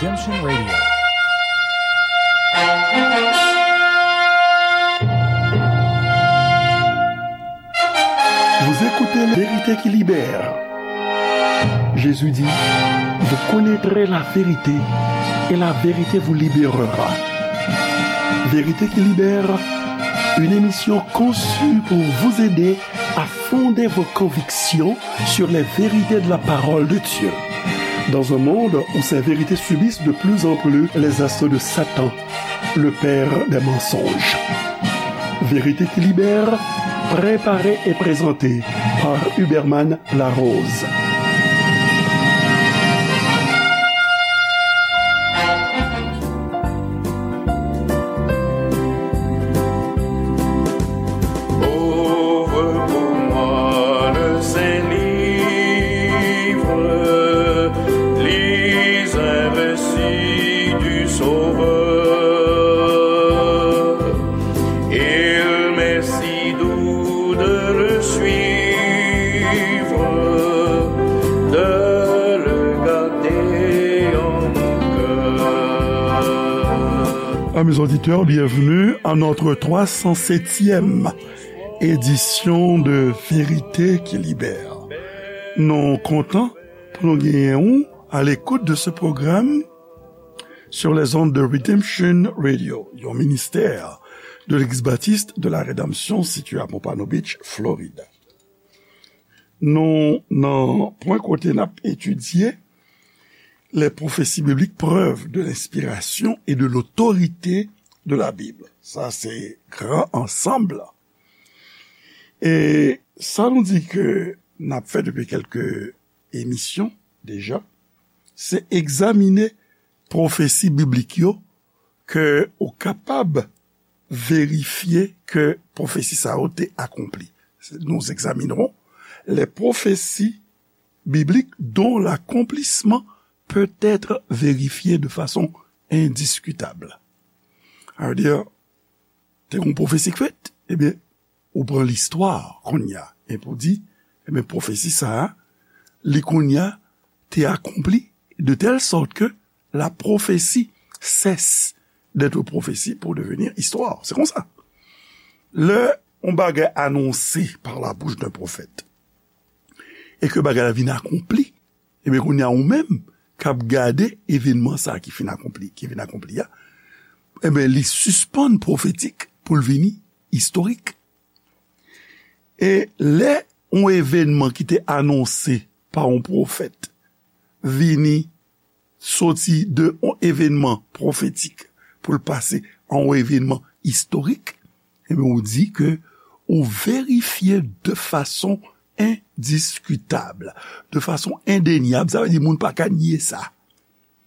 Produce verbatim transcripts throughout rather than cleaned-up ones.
Redemption Radio. Vous écoutez Vérité qui libère. Jésus dit, vous connaîtrez la vérité et la vérité vous libérera. Vérité qui libère, une émission conçue pour vous aider à fonder vos convictions sur les vérités de la parole de Dieu. Dans un monde où ces vérités subissent de plus en plus les assauts de Satan, le père des mensonges. Vérité qui libère, préparée et présentée par Huberman Larose. Ouvre pour moi le Saint Livre, lis un récit du Sauveur. Il m'est si doux de le suivre, de le garder en mon cœur. Amis auditeurs, bienvenue à notre trois cent septième édition de Vérité qui libère. Nou kontan pou nou genyen ou à l'écoute de ce programme sur les ondes de Redemption Radio, yon ministè de l'Église baptiste de la Rédemption situé à Pompano Beach, Florida. Nou nan pwen kote n ap etidye les prophéties bibliques, preuves de l'inspiration et de l'autorité de la Bible. Sa se gran ansanm la. E sa nou di ke n ap fè depi kèlke emisyon deja, se egzamine pwofesi biblik yo ke ou kapab verifye ke pwofesi sa yo te akonpli. Nous examinerons les prophéties bibliques dont l'accomplissement peut être vérifié de façon indiscutable. Sa vle di, te gon pwofesi k fèt, ebyen, ou pran listwa kounye a, epi ou di, ebyen, pwofesi sa a, li kounye a te akonpli, de telle sorte que la prophétie cesse d'être prophétie pour devenir histoire. Se konsa. Lè yon bagay anonse par la bouche d'un prophète, e ke bagay la vin akonpli, ebyen, kounye a ou menm k ap gade evènman sa a ki fin akonpli, ki vin akonpli a, ebyen, li sispann pwofetik pou l vini istorik. E lè yon evènman ki te anonse pa yon pwofèt vini soti de yon evènman pwofetik pou l pase a yon evènman istorik, ebyen, ou di ke ou verifye de fason endiskitab, de fason endenyab, sa vle di moun pa ka nye sa,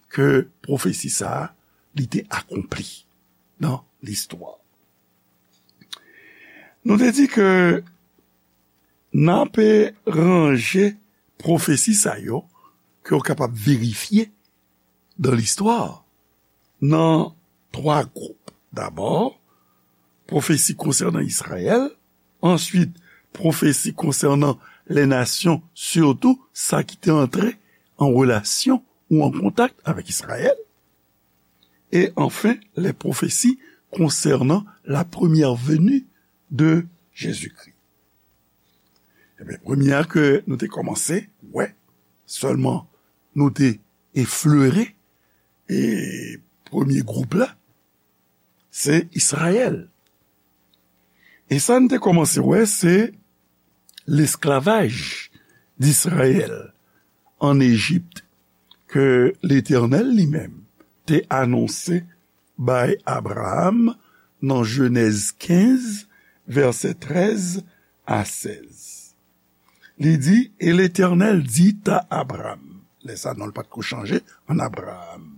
ke pwofesi sa a, li te akonpli nan listwa. Nou te di ke n ape ranje pwofesi sa yo ke w kapab verifye dan listwa nan twa gwoup. Dabò, pwofesi konsènan Izrayèl, answit, pwofesi konsènan les nations, sitou sa ki te antre an relasyon ou an kontak avèk Izrayèl, e anfen, les prophéties concernant la première venue de Jésus-Christ. Ebyen, premye a ke nou te kòmanse wè, sèlman nou te eflere, e premye gwoup la, se Izrayèl. E sa n te kòmanse wè, se lesklavaj d'Izrayèl ann Ejip ke Letènèl li menm te anonse bay Abraram nan Jenèz kenz, vèsè trèz a sèz. Li di, Et l'Éternel dit à Abram, lè sa non l pa t ko chanje, an Abraram,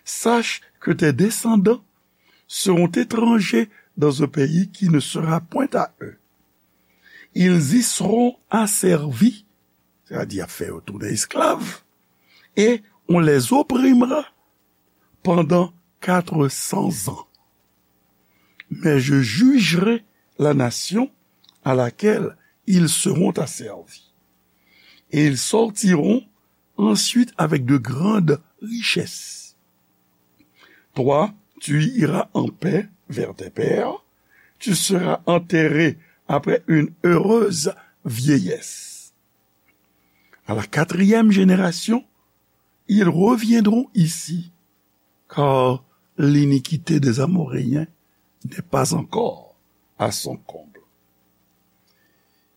Sache que tes descendants seront étrangers dans un pays qui ne sera point à eux. Ils y seront asservis, c'est-à-dire y ap fè yo tounen esklav, et on les opprimera pendant quatre cents ans. Mais je jugerai la nation à laquelle ils seront asservis. Et ils sortiront ensuite avec de grandes richesses. Toi, tu iras en paix vers tes pères, tu seras enterré après une heureuse vieillesse. À la quatrième génération, ils reviendront ici, car l'iniquité des Amoréens n'est pas encore à son comble.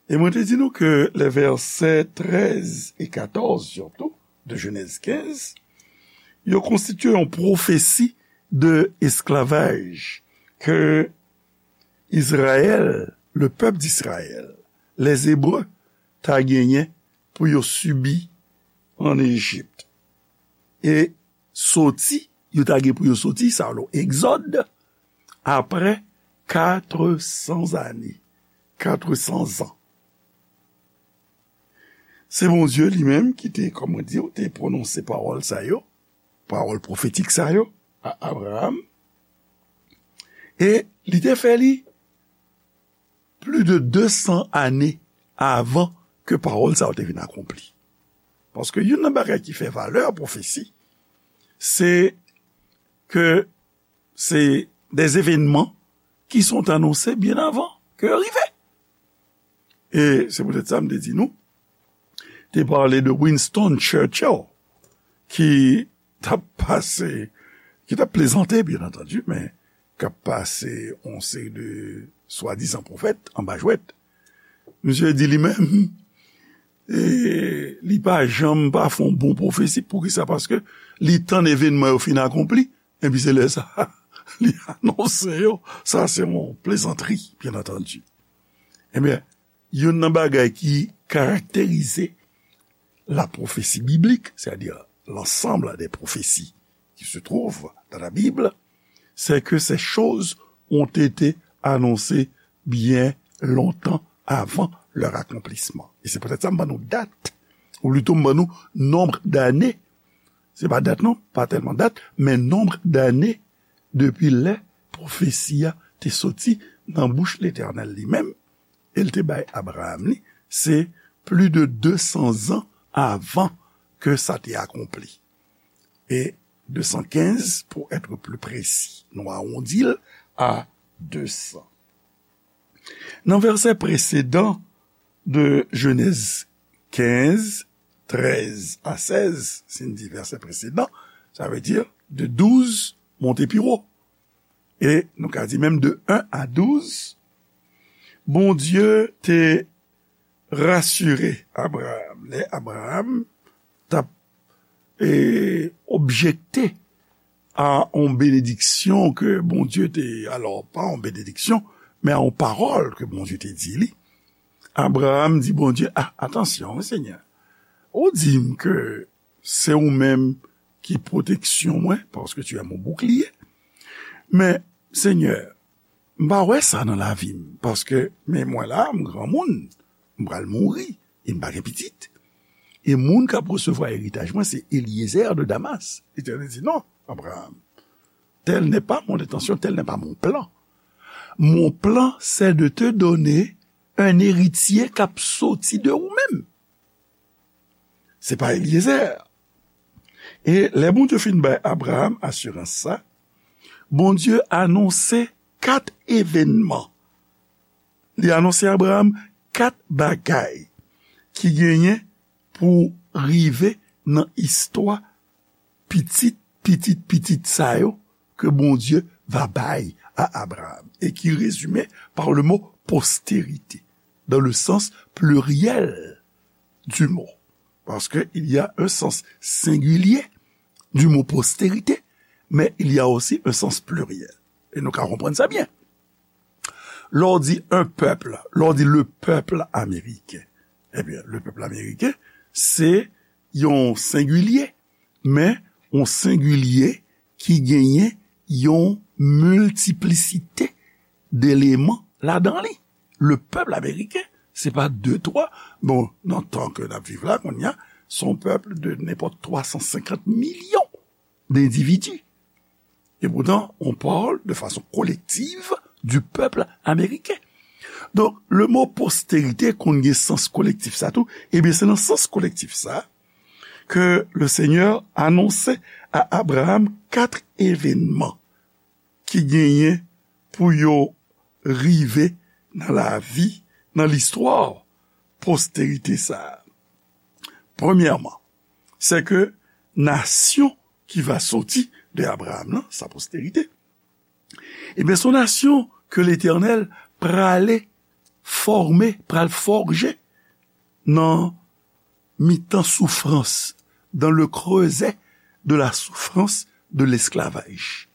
E mwen te di nou ke lè vèsè trèz e katòz, sitou, de Jenèz kenz, yo konstitye yon pwofesi de esklavaj ke Izrayèl, le pèp d'Izrayèl, les Hébreux, ta genyen pou yo sibi ann Ejip. E soti, yo ta gen pou yo soti, sa yo, Egzòd, apre katresan ane, katresan zan. Se Bondye li menm ki te, kòm mwen di w, te pwononse pawòl sa yo, pawòl pwofetik sa yo, a Abraram. E li te fè li plis de de san ane avan ke pawòl sa yo te vin akonpli. Paske youn nan bagay ki fè valè pwofesi, se ke se des événements qui sont annoncés bien avant que yo rive. E se poutèt sa m te di nou, te pale de Winston Churchill, ki t ap pase, ki t ap plezante, byen antandi, men k ap pase yon seri de swadizan pwofèt anba jwèt. Misye di li menm, e, li pa janm pa fè yon bon pwofesi. Poukisa? Paske li tann evènman yo fin akonpli, epi se lè sa, li anonse yo. Sa se yon plezantri, byen antandi. Ebyen, youn nan bagay ki karakterize la prophétie biblique, c'est-à-dire l'ensemble des prophéties qui se trouvent dans la Bible, c'est que ces choses ont été annoncées bien longtemps avant leur accomplissement. E se poutèt sa m ban nou dat, ou plito m ban nou nonb dane. Se pa dat non, pa tèlman dat, men nonb dane depi lè pwofesi a te soti nan bouch Letènèl li menm, e l te bay Abraram li, se plis de de san zan avan ke sa te akonpli. E de san kenz, pour être plus précis, nou awondi l a de san. Nan vèsè presedan de Jenèz kenz, trèz a sèz, si n di vèsè presedan, sa vle di de douz monte pi wo. E nou ka di menm de en a douz, Bondye te rasire Abraram. Lè Abraram t ap, e, objekte a yon benediksyon ke Bondye te, alò, pa yon benediksyon, men a yon pawòl ke Bondye te di li, Abraram di Bondye, "A, atansyon, wi, Senyè. Ou di m ke se ou menm ki pwoteksyon mwen, parce que tu es mon bouclier. Men, Senyè, m pa wè sa nan lavi m, paske, men mwen la, m granmoun, m pral mouri, e m pa gen pitit. E moun k ap resevwa eritaj mwen, se Eliezer de Damas." Letènèl di, "Non, Abraram, telle n'est pas mon intention, tel n'est pas mon plan. Mon plan, c'est de te donner un héritier k ap soti de ou menm. Se pa Eliezer." E lè Bondye fin bay Abraram asirans sa, Bondye anonse kat evènman. Li anonse Abraram kat bagay ki genyen pou rive nan istwa pitit, pitit, pitit sa yo ke Bondye va bay a Abraram, e ki rezime par le mot postérité, dans le sens pluriel du mot. Parce que il y a un sens singulier du mot postérité, mais il y a aussi un sens pluriel. E nou ka konprann sa byen. Lè w di un peuple, lè w di le peuple américain, ebyen, le peuple américain, se yon sengilye, men yon sengilye ki genyen yon miltiplisite deleman ladan li. Le peuple américain, se pa de, twa, bon, nan tan ke n ap viv la, kounye a, se yon pèp de nenpòt twa san senkant milyon dendividi. Et pourtant, on parle de façon collective du peuple américain. Donk, le mo posterite konn gen sans kolektif sa tou. Ebyen, se nan sans kolektif sa ke le Senyè anonse a Abraram kat evènman ki genyen pou yo rive nan lavi, nan listwa posterite sa a. Premyèman, se ke nasyon ki va soti de Abraram nan, sa posterite, ebyen, se yon nasyon ke Letènèl prale fòme, pral fòje nan mitan soufrans, dans le creuset de la souffrance de l'esclavage.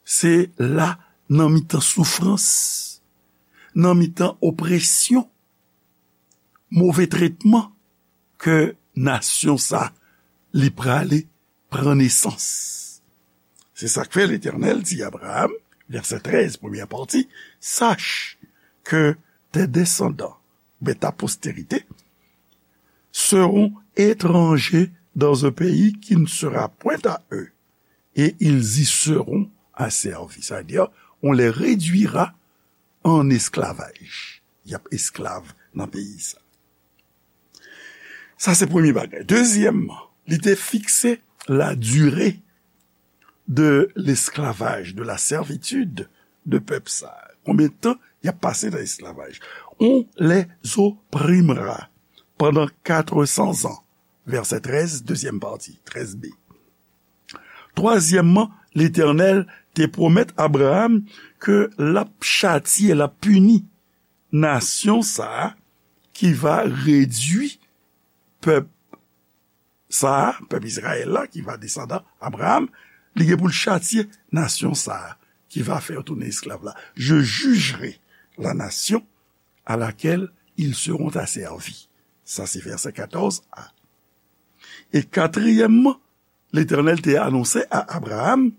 Se la, nan mitan soufrans, nan mitan opresyon, move tretman, ke nasyon sa, li prale pran nesans. Se sa k fè Letènèl di Abraram, vèsè trèz, premyè pati, Sache que tes descendants, ben, ta postérité, seront étrangers dans un pays qui ne sera point à eux, et ils y seront asservis. Sa vle di, on les réduira en esclavage. Y ap esklav nan peyi sa. Sa se premye bagay. Dezyèmman, li te fikse la durée de l'esclavage, de la servitude de pèp sa. Konbyen tan y ap pase nan esklavaj? On les opprimera pendant quatre cents ans. Vèsè trèz, dezyèm pati, trèz B. Twazyèmman, Letènèl te pwomèt Abraram ke l ap chatye, l ap pini nasyon sa a ki va redui pèp sa a, pèp Izrayèl la, ki va desandan Abraram, li gen pou l chatye nasyon sa a ki va fè yo tounen esklav la. Je jugerai la nation à laquelle ils seront asservis. Sa se vèsè katòz A. E katriyèmman, Letènèl te anonse a Abraram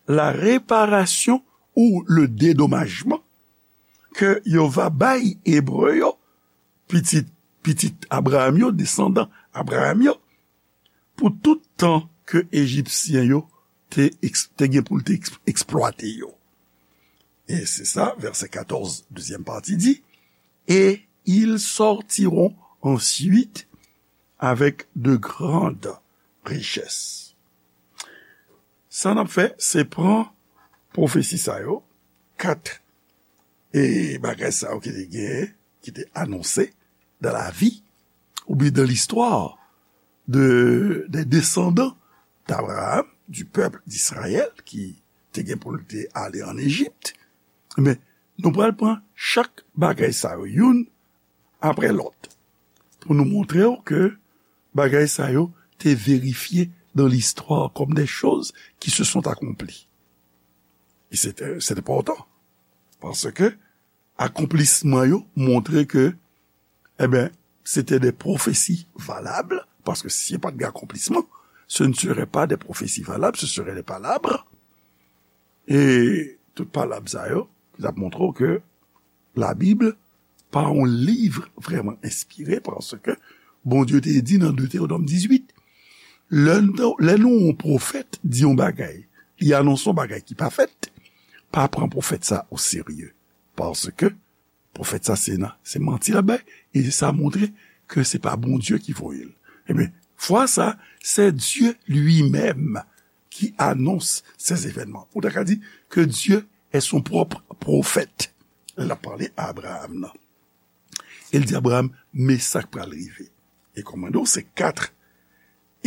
la reparasyon ou le dedomajman ke yo va bay Ebre yo, pitit, pitit Abraram yo, desandan Abraram yo, pou tout tan ke Ejipsyen yo te eks-, te gen pou l te eks-, eksplwate yo. E se sa, vèsè katòz, dezyèm pati di, et ils sortiront ensuite avec de grandes richesses. Sa n ap fè, se pran pwofesi sa yo, kat e bagay sa yo ki te gen, ki te anonse dans la vie, oubyen dans l'histoire de, des descendants d'Abraham, du peuple d'Israël, ki te gen pou l te ale an Ejip. Men, nou pral pran chak bagay sa yo, youn apre lòt, pou nou montre w ke bagay sa yo te verifye dans l'histoire comme des choses qui se sont accomplies. E se, se enpòtan, paske akonplisman yo montre ke, eben, se te de pwofesi valab, paske si pa t gen akonplisman, ce ne serait pas des prophéties valables, ce serait des palabres. E tout palab sa yo, ki t ap montre w ke Labib pa yon liv vrèman enspire, paske Bondye te di nan Detewonòm dizuit, lè nou, lè nou yon pwofèt di yon bagay, li anonse yon bagay ki pa fèt, pa pran pwofèt sa o serye. Paske pwofèt sa se nan, se manti l ap bay, e sa montre ke se pa Bondye ki voye l. Ebyen, fwa sa, c'est Dieu lui-même qui annonce ces événements. Ou ta ka di que Dieu est son propre prophète. L ap pale a Abraham nan. E l di Abraham, men sa k pral rive. E kòm mwen di w, se kat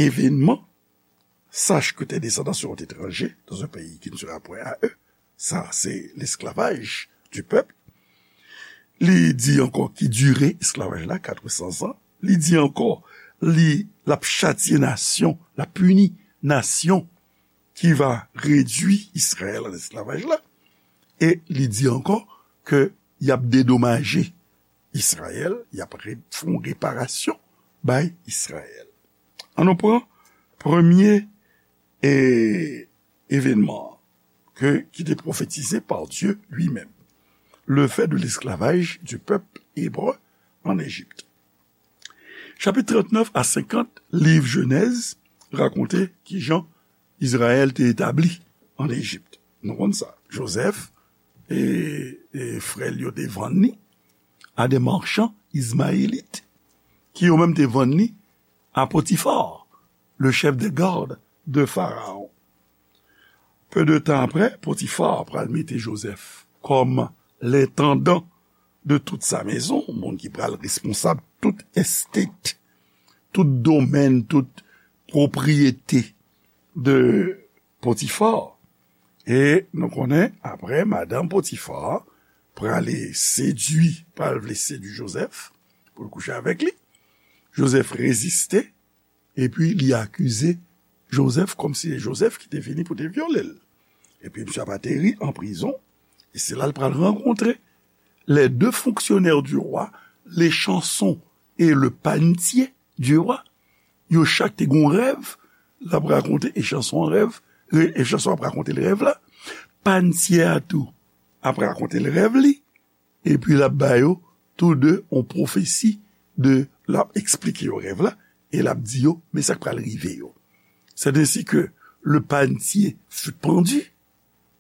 evènman, Sache que tes descendants seront étrangers dans un pays qui ne sera point à eux. Sa, se lesklavaj du pèp. Li di ankò ki dire esklavaj la, quatre cents ans. Li di ankò, li, l ap chatye nasyon, l ap pini nasyon ki va redui Izrayèl an esklavaj la. E li di ankò ke y ap dedomaje Izrayèl, y ap re-, fè yon reparasyon bay Izrayèl. An nou pran premye, e, evènman ke, ki te pwofetize par Dieu lui-même, le fait de l'esclavage du peuple hébreu en Égypte. Chapit trannèf a senkant, liv Jenèz rakonte kijan Izrayèl te etabli an Ejip. Nou konn sa. Jozèf e, e frè l yo te vann li a de marchands ismaélites, ki yo menm te vann li a Potifar, le chef des gardes de Pharaon. Peu de tan apre, Potifa pral mete Jozèf kòm lentandan de tout sa mezon, moun ki pral responsab tout estate, tout domèn, tout pwopriyete de Potifa. E nou konnen, apre, madanm Potifa prale sedui, pral vle sedui Jozèf pou l kouche avèk li. Jozèf reziste, epi li akize Jozèf kòmsi se Jozèf ki te vini pou te vyole l. Epi misye ap ateri an prizon, e se la l pral rankontre les deux fonctionnaires du roi, Echanson et le panetier du roi. Yo chak te gen yon rèv, l ap rakonte Echanson an rèv, Echanson ap rakonte l rèv la, panetier a tou ap rakonte l rèv li, epi l ap ba yo tou de yon pwofesi de, l ap eksplike yo rèv la, e l ap di yo, men sa k pral rive yo. C'est ainsi que le panetier fut pendu,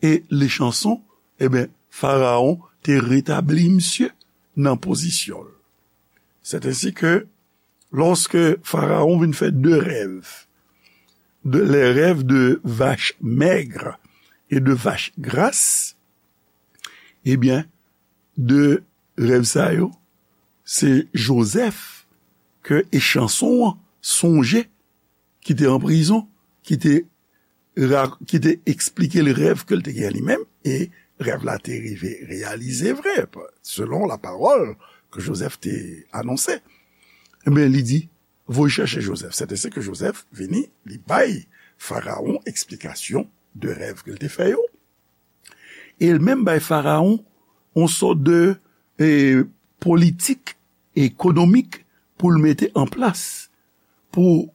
e Echanson, e ben, Farawon te retabli misye nan pozisyon l. C'est ainsi que, lorsque Pharaon vin fè de rèv, de, les rêves de vaches maigres et de vaches grasses, e ben, de rèv sa yo, se Jozèf ke Echanson an sonje, ki te an prizon, ki te ra-, ki te eksplike l rèv ke l te gen li menm, e rèv la te rive reyalize vre, selon la parole que Joseph te anonse. Ebyen, li di, voye chèche Joseph. C'est ainsi que Joseph vini, li bay Farawon eksplikasyon de rèv ke l te fè yo. E l menm bay Farawon yon sòt de, e, politik ekonomik pou l mete an plas, pou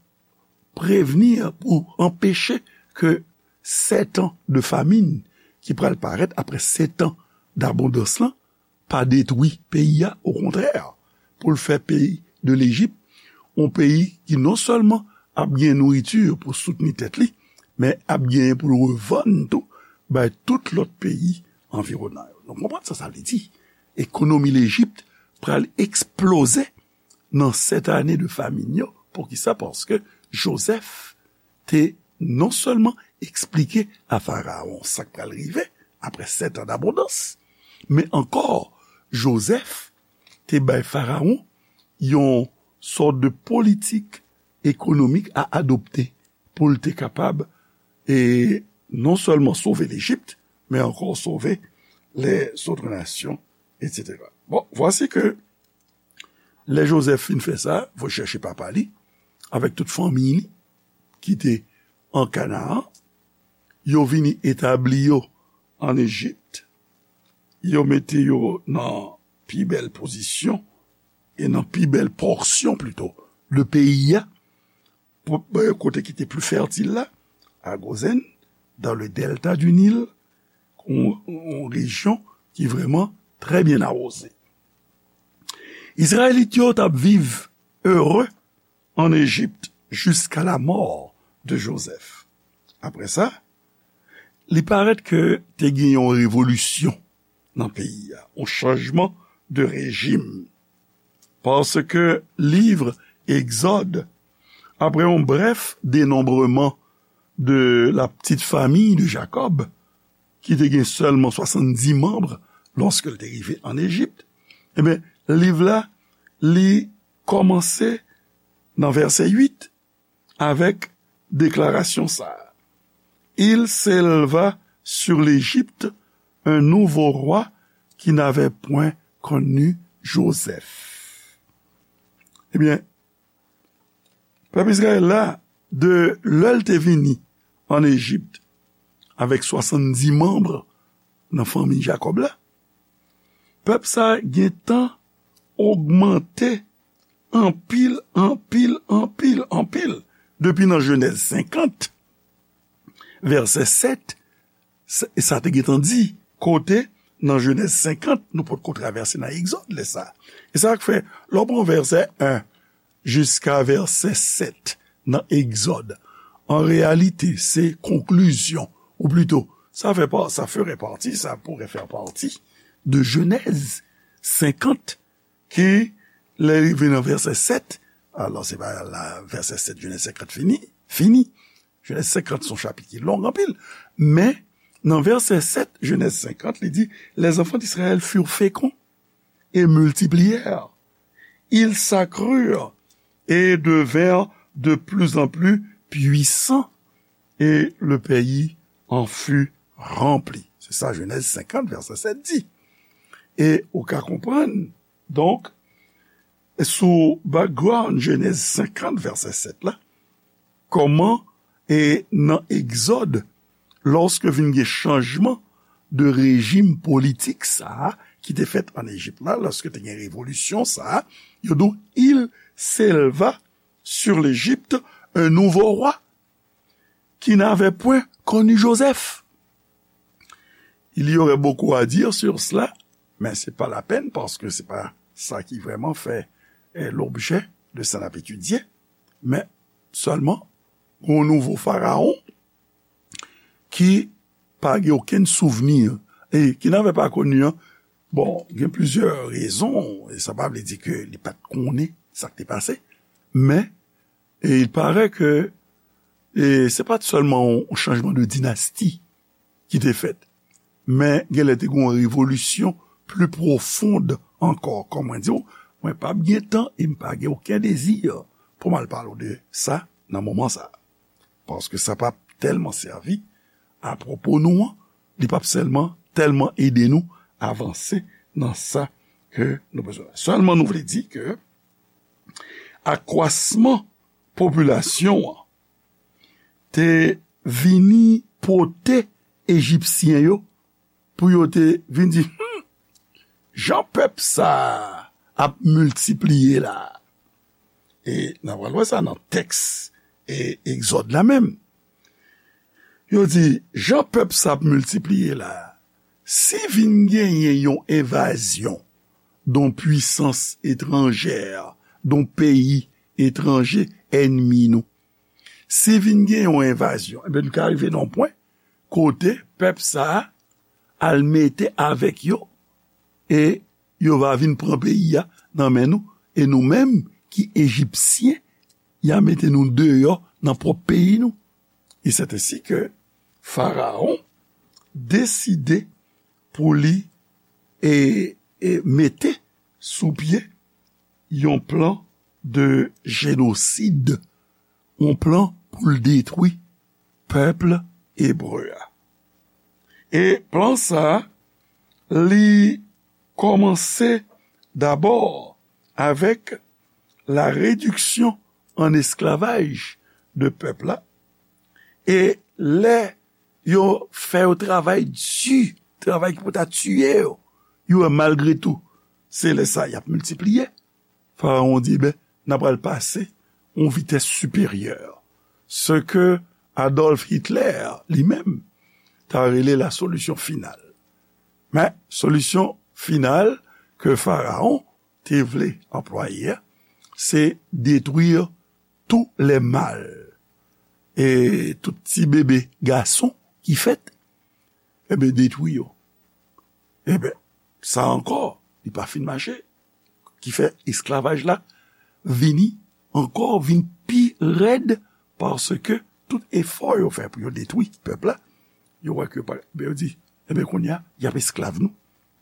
prevni, pou anpeche ke sèt an de famin ki pral parèt apre sèt an dabondans lan pa detwi peyi a, okontrè, pou l fè peyi de Lejip yon peyi ki non sèlman ap gen nouriti pou soutni tèt li, men ap genyen pou l revann tou bay tout lòt peyi anviwonan yo. Nou konprann sa sa vle di. Ekonomi Lejip pral eksploze nan sèt ane de famin yo. Poukisa? Paske Jozèf te non sèlman eksplike a Farawon sa k pral rive apre sèt an dabondans, men ankò, Jozèf te bay Farawon yon sòt de politik ekonomik a adopte pou l te kapab, e, non sèlman sove Lejip, men ankò sove lèzòt nasyon, etsetera. Bon, vwasi ke lè Jozèf fin fè sa, voye chèche papa li, avèk tout fanmi li, ki te an Kanaan, yo vini etabli yo an Ejip, yo mete yo nan pi bèl pozisyon, e nan pi bèl pòsyon plito, de peyi a, pou, kote ki te pli fètil la, a Gozèn, dans le delta du Nil, yon, yon rejyon ki vrèman trè byen awoze. Izrayelit yo t ap viv ere an Ejip jiska lamò de Jozèf. Apre sa, li parèt ke te gen yon revolisyon nan peyi a, yon chanjman de rejim. Paske liv Egzòd, apre yon brèf denonbreman de la petite famille de Jacob, ki te gen sèlman swasanndis manm lòske l te rive an Ejip, ebyen, liv la, li kòmanse nan vèsè uit avèk deklarasyon sa a, Il s'éleva sur l'Égypte un nouveau roi qui n'avait point connu Joseph. Ebyen, pèp Izrayèl la, de lè l te vini an Ejip avèk swasanndis manm nan fanmi Jakòb la, pèp sa a gentan ogmante anpil, anpil, anpil, anpil. Depi nan Jenèz senkant, vèsè sèt, sa, sa te gentan di, kote nan Jenèz senkant, nou potko travèse nan Egzòd lè sa a. E sa k fè, lè w pran vèsè en jiska vèsè sèt nan Egzòd, an reyalite, se konklizyon, ou plito, sa fè pa, ça ferait partie, ça pourrait faire partie de Genèse cinquante, ki, lè rive nan vèsè sèt, alò, se pa la, vèsè sèt, Jenèz senkant fini, fini. Jenèz senkant se yon chapit ki long anpil, men Nan vèsè sèt, Jenèz senkant, li di, Les enfants d'Israël furent féconds et multiplièrent. Ils s'accrurent et devinrent de plus en plus puissants, et le pays en fut rempli. Se sa Jenèz senkant, vèsè sèt di. E ou ka konprann, donk, sou background Jenèz senkant, vèsè sèt la, kòman e nan Egzòd, lòske vin gen chanjman de rejim politik sa a ki te fèt ann Ejip la, lòske te gen revolisyon sa a, yo di w, Il s'éleva sur l'Égypte un nouveau roi qui n'avait point connu Joseph. Il y aurait beaucoup à dire sur cela, mais c'est pas la peine parce que c'est pas ça qui vraiment fait eh, l'objet de sa n ap etidye, men sèlman yon nouvo farawon ki pa gen okenn souvni e ki n'avait pas connu an. Bon, gen plizyè rezon, e sa pa vle di ke li pa t konnen sa k te pase, men e il paraît ke e se pa t sèlman yon chanjman de dinasti ki te fèt, men genlè te gen yon revolisyon pli pwofond ankò. Kòm mwen di w, mwen p ap gen tan e m pa gen okenn dezi pou m al pale w de sa nan moman sa a. Paske sa p ap tèlman sèvi apwopo nou an, li p ap sèlman tèlman ede nou avanse nan sa ke nou bezwen. Sèlman nou vle di ke akwasman popilasyon an te vini pote Ejipsyen yo pou yo te vin di, hmm, jan pèp sa a ap miltipliye la. E n a pral wè sa nan tèks e Egzòd la menm. Yo di, jan pèp sa ap miltipliye la, si vin genyen yon envazyon, don pwisans etranjè, don peyi etranje, ènmi nou, si vin gen yon envazyon, ebyen, nou ka rive nan yon pwen kote pèp sa a al mete avèk yo e yo va vin pran peyi a nan men nou. E nou menm ki Ejipsyen, y a mete nou deyò nan pwòp peyi nou. E sèt ensi ke Farawon deside pou li e, e mete sou pye yon plan de jenosid, yon plan pou l detwi pèp ebre a. E plan sa a, li kòmanse dabò avèk la rediksyon an esklavaj de pèp la. E lè yo fè yo travay di, travay ki pou ta tiye yo, yo wè malgre tou, se lè sa y ap miltipliye. Farawon di, ben, n a pral pase yon vitès siperyè. Se ke Adolf Hitler, li menm, ta rele la solisyon final. Men, solisyon final ke Farawon te vle anplwaye a, se detwi tous les mâles. E tout ti bebe gason ki fèt, ebyen, detwi yo. Ebyen, sa ankò, li pa fin mache. Ki fè esklavaj la vini ankò, vin pi rèd, paske tout efò yo fè pou yo detwi pèp la, yo wè ke pa, ebyen, yo di, ebyen, kounye a, y ap esklav nou.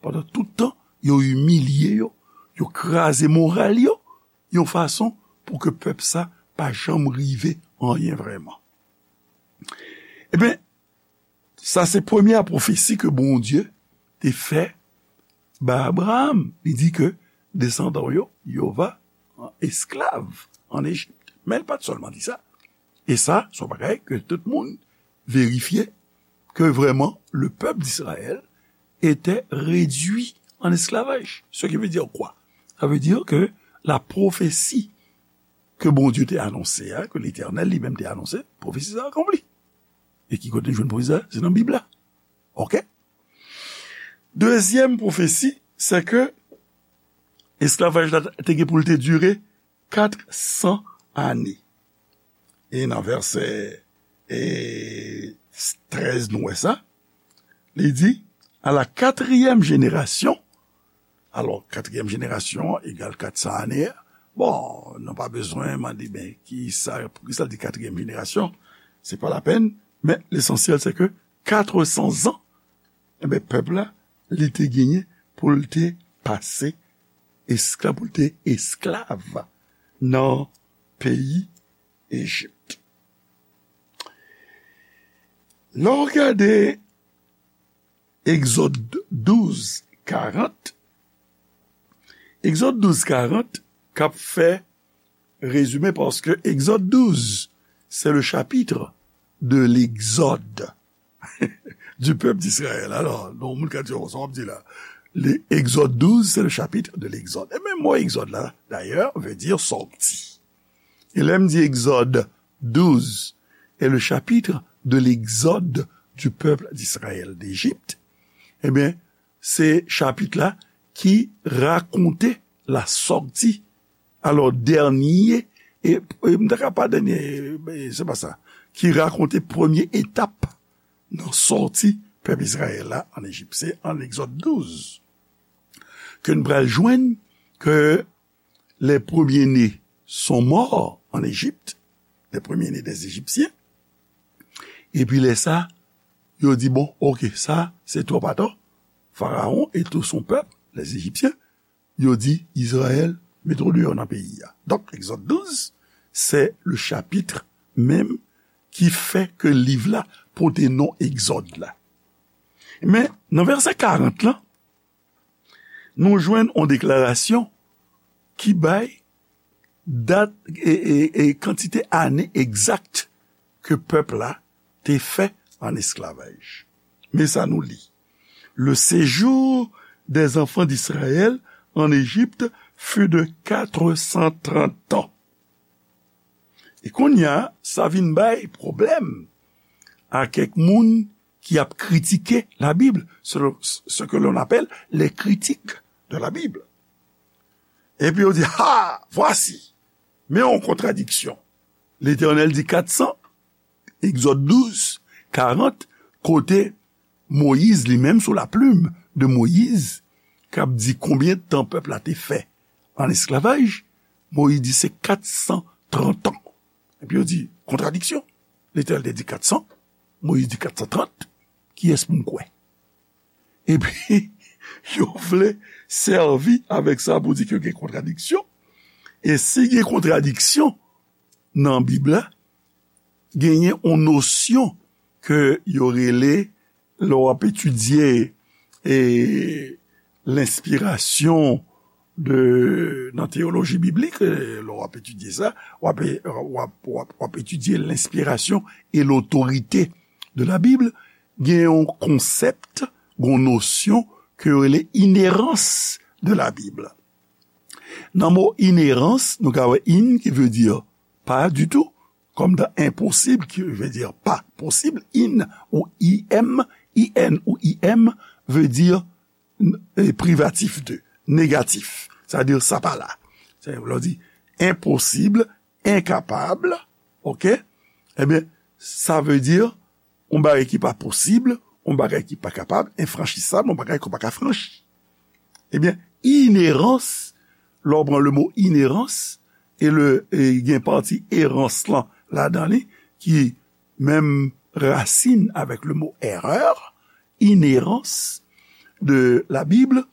Pandan tout tan, yo imilye yo, yo kraze moral yo, yon fason pou ke pèp sa pa janm rive anyen vrèman. Ebyen, sa se premye pwofesi ke Bondye te fè ba Abraram. Li di ke desandan w yo, yo va an esklav an Ejip. Men l pa t sèlman di sa. E sa, se yon bagay ke tout moun verifye, ke vrèman, le pèp d'Israël était réduit en esclavage. Ce qui veut dire quoi? Sa vle di ke la pwofesi ke Bondye te anonse a, ke Letènèl li menm te anonse, pwofesi sa akonpli. E ki kote nou jwenn pwofesi sa? Se nan Bib la. Oke? Dezyèm pwofesi, se ke esklavaj la te gen pou l te dire kat san ane. E nan vèsè e, trèz, nou wè sa. Li di, à la quatrième génération, alò, katriyèm jenerasyon egal kat san ane a. Bon, nou pa bezwen mande, ben, ki sa, poukisa l di katriyèm jenerasyon? Se pa lapenn, men lesansyèl, se ke katresan zan, enben, pèp la, li te genyen pou l te pase esklav, pou l te esklav nan peyi Ejip. Lè w gade Egzòd douz karant, Egzòd douz karant k ap fè rezime, paske Egzòd douz, c'est le chapitre de l'exode du peuple d'Israël. Alò, non, moun ka di, "Oh, sa w ap di la?" Le, Egzòd douz, c'est le chapitre de l'exode. E menm mo egzòd la, dayè, vle di sòti. E lè m di Egzòd douz est le chapitre de l'exode du peuple d'Israël d'Égypte, ebyen, se chapit la ki rakonte la sòti, alò, dènye, e, e m ta ka pa dènye, e, se pa sa, ki rakonte premye etap nan sòti pèp Izrayèl la ann Ejip. Se ann Egzòd douz ke n pral jwenn ke les premiers-nés sont morts en Égypte, les premiers-nés des Égyptiens. Epi lè sa, yo di, "Bon, oke, sa, se twòp atò." Pharaon et tout son peuple, les Égyptiens, yo di, "Izrayèl, mete w deyò nan peyi a." Donk, Egzòd douz, se le chapitre menm ki fè ke liv la pote non Egzòd la. Men, nan vèsè karant lan, nou jwenn yon deklarasyon ki bay dat e, e, e kantite ane egzak ke pèp la te fè ann esklavaj. Men sa nou li, "Le séjour des enfants d'Israël en Égypte fut de quatre cent trente ans." E kounye a, sa vin bay pwoblèm a kèk moun ki ap kritike Labib, ce, ce que l'on appelle les critiques de la Bible. Epi yo di, "Ha, voici, men yon kontradiksyon." Letènèl di kat san, Egzòd douz, karant, kote Moyiz li menm, sou la plim de Moyiz, k ap di konbyen tan pèp la te fè ann esklavaj, Moyiz di se kat san trant an. Epi yo di, "Kontradiksyon. Letènèl te di kat san, Moyiz di kat san trant, kiyès pou m kwè?" Epi, yo vle sèvi avèk sa pou di ke gen kontradiksyon. E si gen kontradiksyon nan Bib la, genyen yon nosyon ke yo rele, lè w ap etidye, e, lenspirasyon de, nan teyoloji biblik, e, lè w ap etidye sa, w ap, w ap, w ap, w ap etidye l'inspiration et l'autorité de la Bible, gen yon konsèp, gen yon nosyon ke yo rele inhérence de la Bible. Nan mo inhérence, nou ka wè in ki vle di pa ditou, kòm dans impossible, ki vle di pa posib, in ou im, in ou im vle di, e, privatif de, negatif. Sa vle di sa pa la. Sa vle di enposib, enkapab, oke? Ebyen, sa vle di yon bagay ki pa posib, yon bagay ki pa kapab, enfranchisab, yon bagay ke w pa ka franchi. Ebyen, inhérence, lè w pran le mo inhérence, e le, e gen pati errance lan ladan li, ki menm rasin avèk le mo erreur, inhérence de la Bible,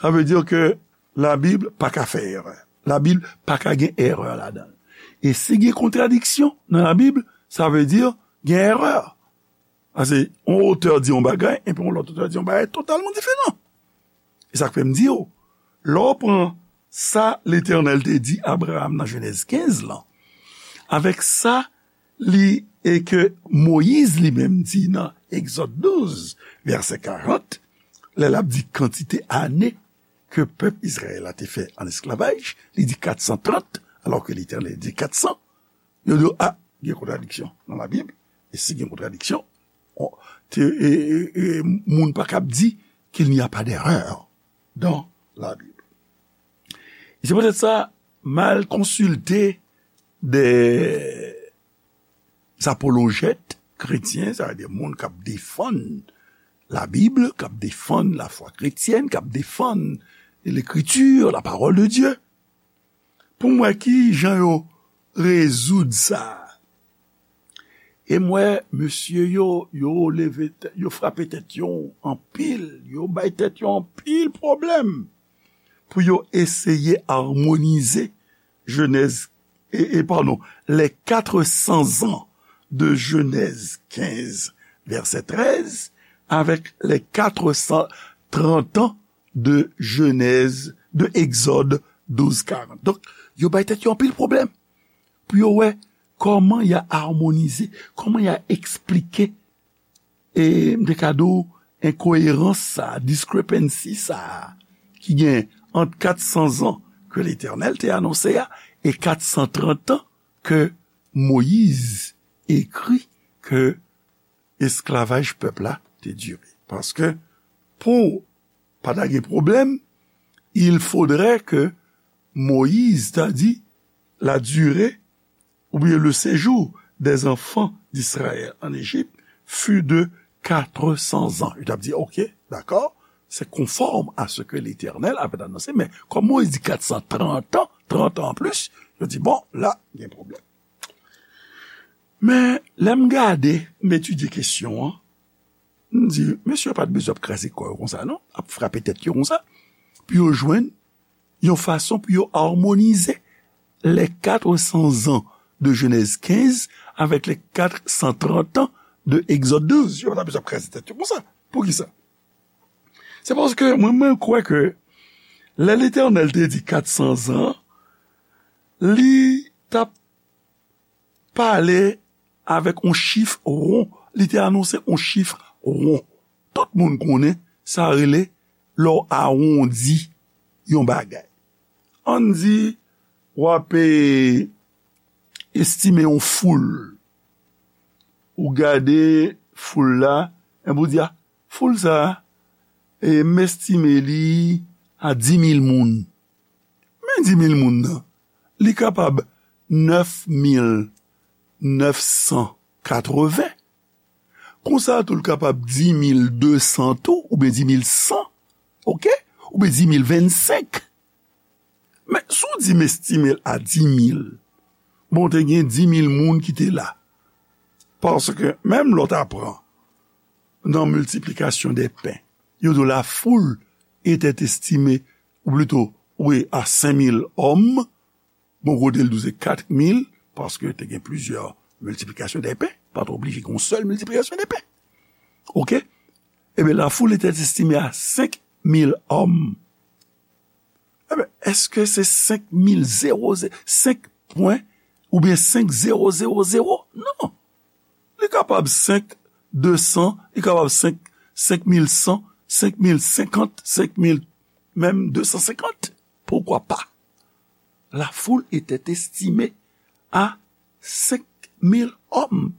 sa vle di ke Labib pa ka fè erè. Labib pa ka gen erè ladan l. E si gen kontradiksyon nan Labib, sa vle di gen erè. Paske yon otè di yon bagay, epi yon lòt otè di yon bagay totalman diferan. E sa k fè m di w, lè w pran sa Letènèl te di Abraram nan Jenèz kenz lan, avèk sa li, e ke Moyiz li menm di nan Egzòd douz, vèsè karant, lè l ap di kantite ane ke pèp Izrayèl la te fè ann esklavaj, li di kat san trant, alò ke Letènèl di kat san. Yo di, a, gen kontradiksyon nan Labib. E si gen kontradiksyon, on, te, e, e, e, moun pa kab di qu'il n'y a pas d'erreur dans la Bible. E se poutèt sa, m al konsilte de apolojèt kretyen, sa vle di moun k ap defann Labib, k ap defann lafwa kretyèn, k ap defann Lekriti, la parole de Dieu, pou m wè ki jan yo rezoud sa. E m wè mesye yo, yo leve tèt, yo frape tèt yo anpil, yo bay tèt yo anpil pwoblèm pou yo eseye amonize Jenèz, e, e, padon, les quatre cents ans de Genèse quinze, verset treize, avec les quatre cent trente ans de Genèse, de Exode douze quarante. Donk, yo bay tèt yo anpil pwoblèm pou yo wè kòman y a amonize, kòman y a eksplike, e m te ka di w, enkoyerans sa, discrepancy sa, ki gen ant kat san zan ke Letènèl te anonse a e kat san trant an ke Moyiz ekri ke esklavaj pèp la te dire. Paske pou pa ta gen pwoblèm, il faudrait que Moïse ta di la durée ou bien le séjour des enfants d'Israël en Égypte fut de quatre cents ans. Yo t ap di, ok, dakò, c'est conforme à ce que l'Éternel avait annoncé, men kòm Moyiz di kat san trant an, trant an an plis, yo di, bon, la, gen pwoblèm. Men, lè m gade, m etidye kesyon an, m di, mesye yo pa t bezwen ap kraze kò yo konsa, non, ap frape tèt yo konsa, pou yo jwenn yon fason pou yo amonize les quatre cents ans de Genèse quinze avec les quatre cent trente ans de Exode douze. Yo pa t bezwen ap kraze tèt yo konsa. Poukisa? Se paske mwen, mwen kwè ke lè Letènèl te di kat san zan, li t ap pale avèk yon chif won. Li te anonse yon chif won. Tout moun konnen sa rele lè w awondi yon bagay. Ann di, w ap, e, estime yon foul. Ou gade foul la, epi ou di, a, foul sa a, e, m estime li a di mil moun. Men di mil moun nan, li kapab nèf mil nèf san katreven. Konsa tou, l kapab di mil de san tou, oubyen di mil san, oke? Oubyen di mil vennsenk. Men, si w di m estime l a di mil, bon, te gen di mil moun ki te la. Paske, menm lè w ta pran nan miltiplikasyon dè pen, yo di w la foule était estimée, ou plito, wi, a senk mil òm, bon, kote l di w se kat mil, paske te gen plizyè miltiplikasyon dè pen, pa t oblije gen yon sèl miltiplikasyon dè pen. Oke? Ebyen, la foule était estimée à cinq mille hommes. Ebyen, èske se senk mil zewo, senk pwen, oubyen senk zewo zewo zewo? Non. Li kapab senk de san, li kapab senk, senk mil san, senk mil senkant, senk mil, menm de san senkant. Pourquoi pas? La foule était estimée à cinq mille hommes.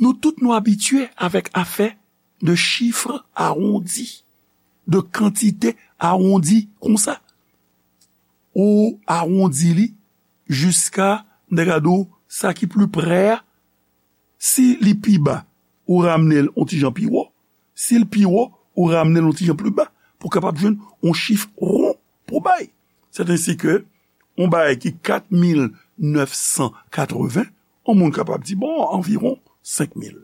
Nou tout nou abitye avèk afè de chif awondi, de kantite awondi konsa. Ou awondi li jiska, m ta ka di w, sa ki pli prè a. Si li pi ba, ou ramne l yon ti jan pi wo. Si l pi wo, ou ramne l yon ti jan pli ba pou w kapab jwenn yon chif won pou w bay. Sèt ensi ke yon bagay ki kat mil nèf san katreven, yon moun kapab di, bon, anviwon senk mil.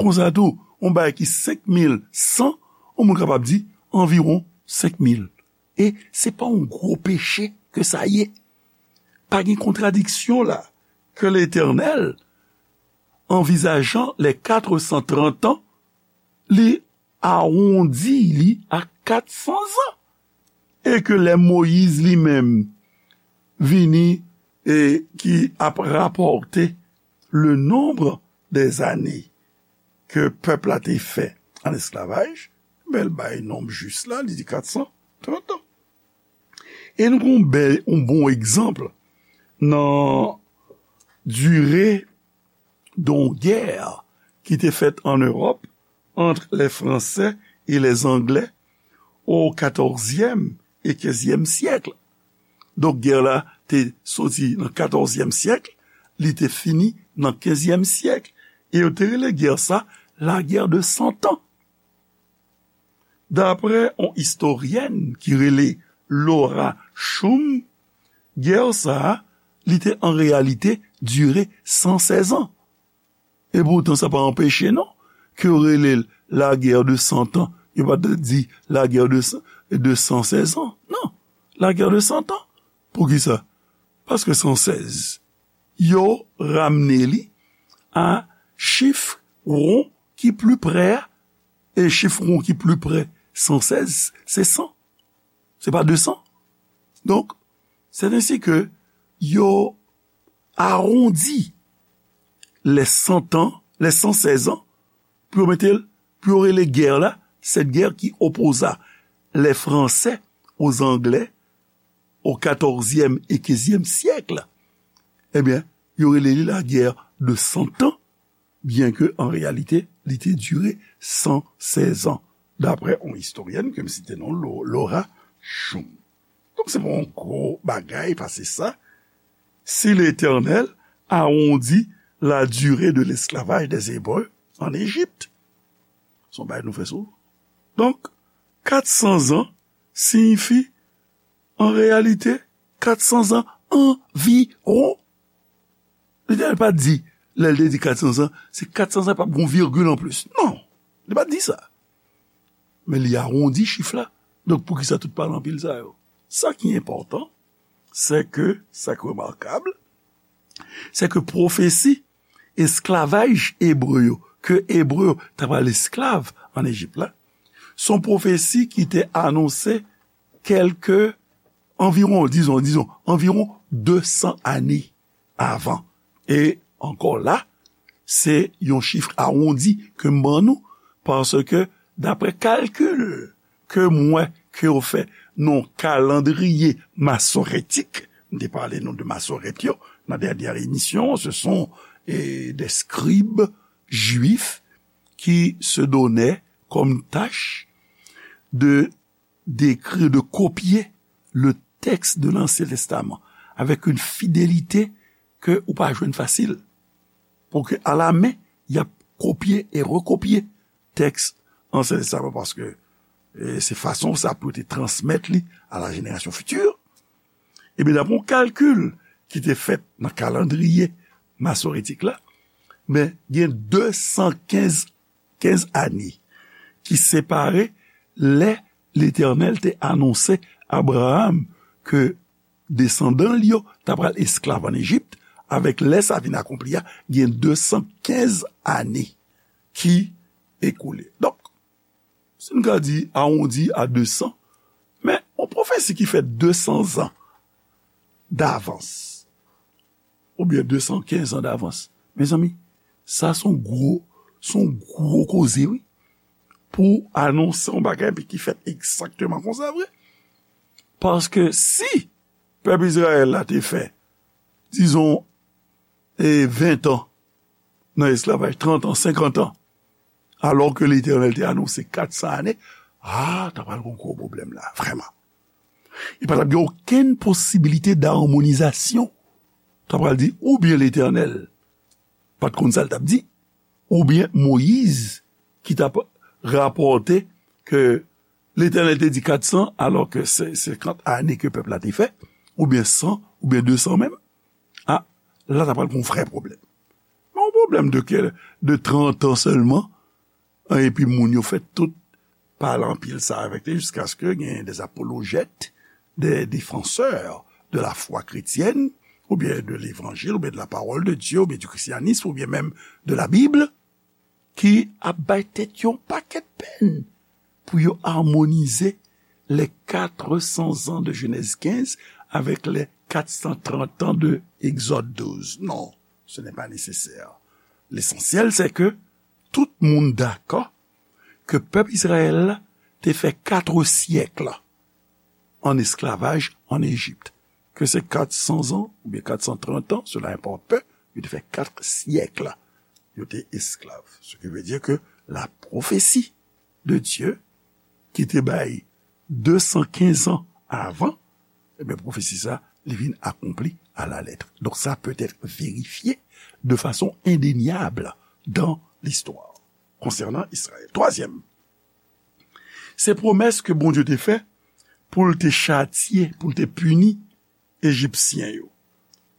Konsa tou, yon bagay ki senk mil san, yon moun kapab di anviwon senk mil. E se pa yon gwo peche ke sa ye. Pa gen kontradiksyon la ke Letènèl, anvizajan les quatre cent trente ans, li awondi li a kat san zan. E ke lè Moyiz li menm vini e ki ap rapòte le nombre des années ke pèp la te fè an esklavaj, men l bay nonb jis la, li di kat san trant an. E nou gon bèl, yon bon egzanp nan dire d'une guerre qui était faite en Europe entre les Français et les Anglais au quatorzième et quinzième siècle. Donk, gè la te soti nan katòzyèm syèk, li te fini nan kenzyèm syèk. E yo te rele gè sa la guerre de cent ans. Daprè yon istoryèn ki rele Laura Shum, gè sa a, li te an reyalite dire san sèz an. E poutan, sa pa anpeche, non, ke yo rele l la guerre de cent ans. Yo pa t di la guerre de, de cent seize ans. Non, la guerre de cent ans. Poukisa? Paske san sèz, yo ramne li a chif won ki pli pre a, e chif won ki pli pre san sèz, se san. Se pa de san. Donk, c'est ainsi que yo awondi les cent ans, les cent seize ans, pou yo mete l, pou yo rele gè la, cette guerre qui opposa les Français aux Anglais au quatorzième et quinzième siècle, ebyen, yo rele li la guerre de cent ans, byen ke an reyalite, li te dire san sèz an, daprè yon istoryèn ke m site non, Lo-, Laura Shum. Donk, se pa yon gwo bagay pase sa. Si Letènèl awondi la durée de l'esclavage des Hébreux en Égypte, se yon bagay nou fè souvan. Donk, kat san zan siyifi, an reyalite, kat san zan anviwon. Letènèl pa t di, lè l te di kat san zan, se kat san zan, p ap gen yon virgil anplis. Non, li pa t di sa. Men li awondi chif la. Donk, poukisa tout pale anpil sa yo? Sa ki enpòtan, se ke, sa ki remakab, se ke pwofesi esklavaj ebre yo, ke ebre yo ta pral esklav ann Ejip la, se yon pwofesi ki te anonse kèlke, anviwon, dizon, dizon, anviwon de san ane avan. E ankò la, se yon chif awondi ke m ban nou, paske, daprè kalkil ke m wè ke yo fè nan kalandriye masoretik, m te pale nou de Masorèt yo nan dènye emisyon, ce sont, eh, des scribes juifs qui se donnaient comme tâche de d'écrire, de copier le texte de l'Ancien Testament avec une fidélité ke ou pa jwenn fasil. Pou ke alamen, y ap kopye e rekopye tèks Ansyen Testaman, paske, eh, se fason sa pou yo te transmèt li a la génération future. Ebyen, daprè yon kalkil ki te fèt nan kalandriye masoretik la, men gen de san kenz, kenz ane ki separe lè Letènèl te anonse Abraram ke desandan l yo ta pral esklav ann Ejip, avèk lè sa vin akonpli a, gen de san kenz ane ki ekoule. Donk, si n ka di awondi a de san, men yon pwofesi ki fèt de san zan davans, oubyen de san kenz an davans, mezanmi, sa se yon gwo, se yon gwo koze, wi. Pou anonse yon bagay, epi ki fèt egzakteman konsa vre. Paske si pèp Izrayèl la te fè, dizon, e ven tan nan esklavaj, trant an, senkant an, alò ke Letènèl te anonse kat san ane, a, ta pral gen yon gwo pwoblèm la, vrèman. E pa t ap gen okenn posibilite d'harmonisation. Ta pral di, oubyen Letènèl pa t konn sa l t ap di, oubyen Moyiz ki t ap rapòte ke Letènèl te di kat san, alò ke se senkant ane ke pèp la te fè, oubyen san, oubyen de san menm. A, la, ta pral gen yon vrè pwoblèm. Men yon pwoblèm de kè, de trant an sèlman, an, epi moun yo fè tout pale anpil sa avèk li, jiskaske gen des apologètes, des défenseurs de la foi chrétienne, oubyen de l'évangile, oubyen de la parole de Dieu, oubyen du christianisme, oubyen menm de la Bible, ki ap bay tèt yo yon pakèt pèn pou yo armonize les quatre cents ans de Genèse quinze avec les quatre cent trente ans de Exode douze. Non, ce n'est pas nécessaire. L'essentiel, c'est que tout moun dakò ke pèp Izrayèl la te fè kat syèk an esklavaj ann Ejip. Ke se kat san zan oubyen kat san trant an, cela importe peu, yo te fè kat syèk yo te esklav. Ce qui veut dire que la prophétie de Dieu ki te bay de san kenz an avan, ebyen, pwofesi sa, li vin akonpli à la lettre. Donc, ça peut être vérifié de façon indéniable dans l'histoire concernant Israël. Twazyèm, se pwomès ke Bondye te fè pou l te chatye, pou l te pini Ejipsyen yo.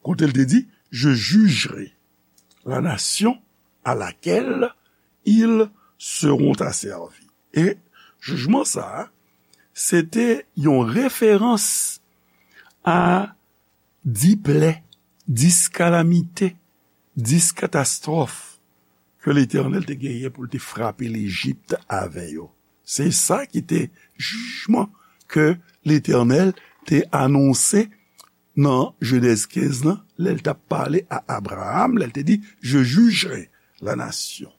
Kote l te di, je jugerai la nation à laquelle ils seront asservis. E jijman sa a, se te yon referans a dis plè, dis kalamite, dis katastwòf ke Letènèl te genyen pou l te frape Lejip avè yo. Se sa ki te jijman ke Letènèl te anonse nan Jenèz kenz lan, lè l t ap pale a Abraram, lè l te di, "Je jugerai la nation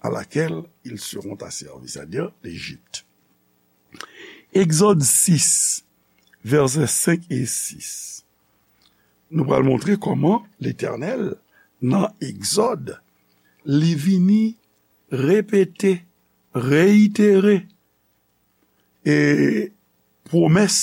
à laquelle ils seront asservis", c'est-à-dire l'Égypte. Egzòd sis, vèsè senk e sis. Nou pral montre kòman Letènèl, nan Egzòd, li vini repete, reyitere, e pwomès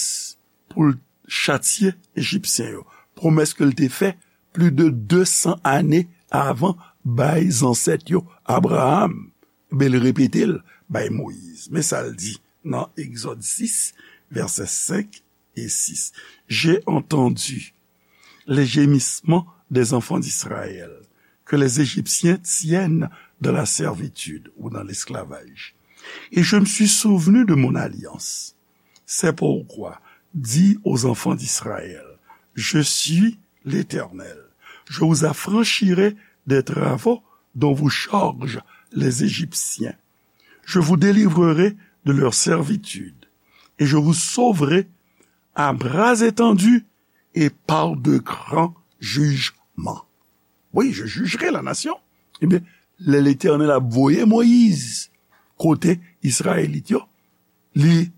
pou l chatye Ejipsyen yo. Pwomès ke l te fè plis de de san ane avan bay zansèt yo, Abraram. Men l repete l bay Moyiz. Men sa l di nan Egzòd sis, vèsè senk e sis. J'ai entendu les gémissements des enfants d'Israël, que les Égyptiens tiennent dans la servitude ou dans l'esclavage. Et je me suis souvenu de mon alliance. C'est pourquoi dis aux enfants d'Israël, je suis l'Éternel. Je vous affranchirai des travaux dont vous chargent les Égyptiens. Je vous délivrerai de leur servitude et je vous sauverai à bras étendus et par de grands jugements. Oui, je jugerai la nation. Ebyen, lè Letènèl ap voye Moyiz kote Izrayelit yo, li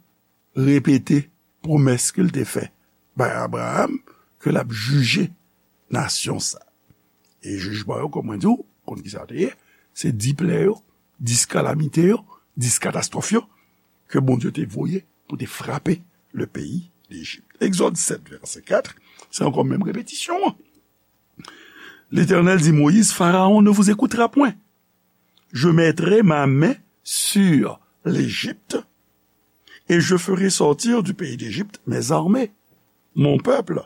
repete pwomès ke l te fè bay Abraram ke l ap jije nasyon sa. E jijman yo, kòm mwen di w, konn ki sa te ye, se dis plè yo, dis kalamite yo, dis katastwòf yo ke Bondye te voye pou te frape le peyi Lejip. Egzòd sèt, vèsè kat, se ankò menm repetisyon an. Letènèl di Moyiz, Pharaon ne vous écoutera point. Je mettrai ma main sur l'Égypte et je ferai sortir du pays d'Égypte mes armées, mon peuple,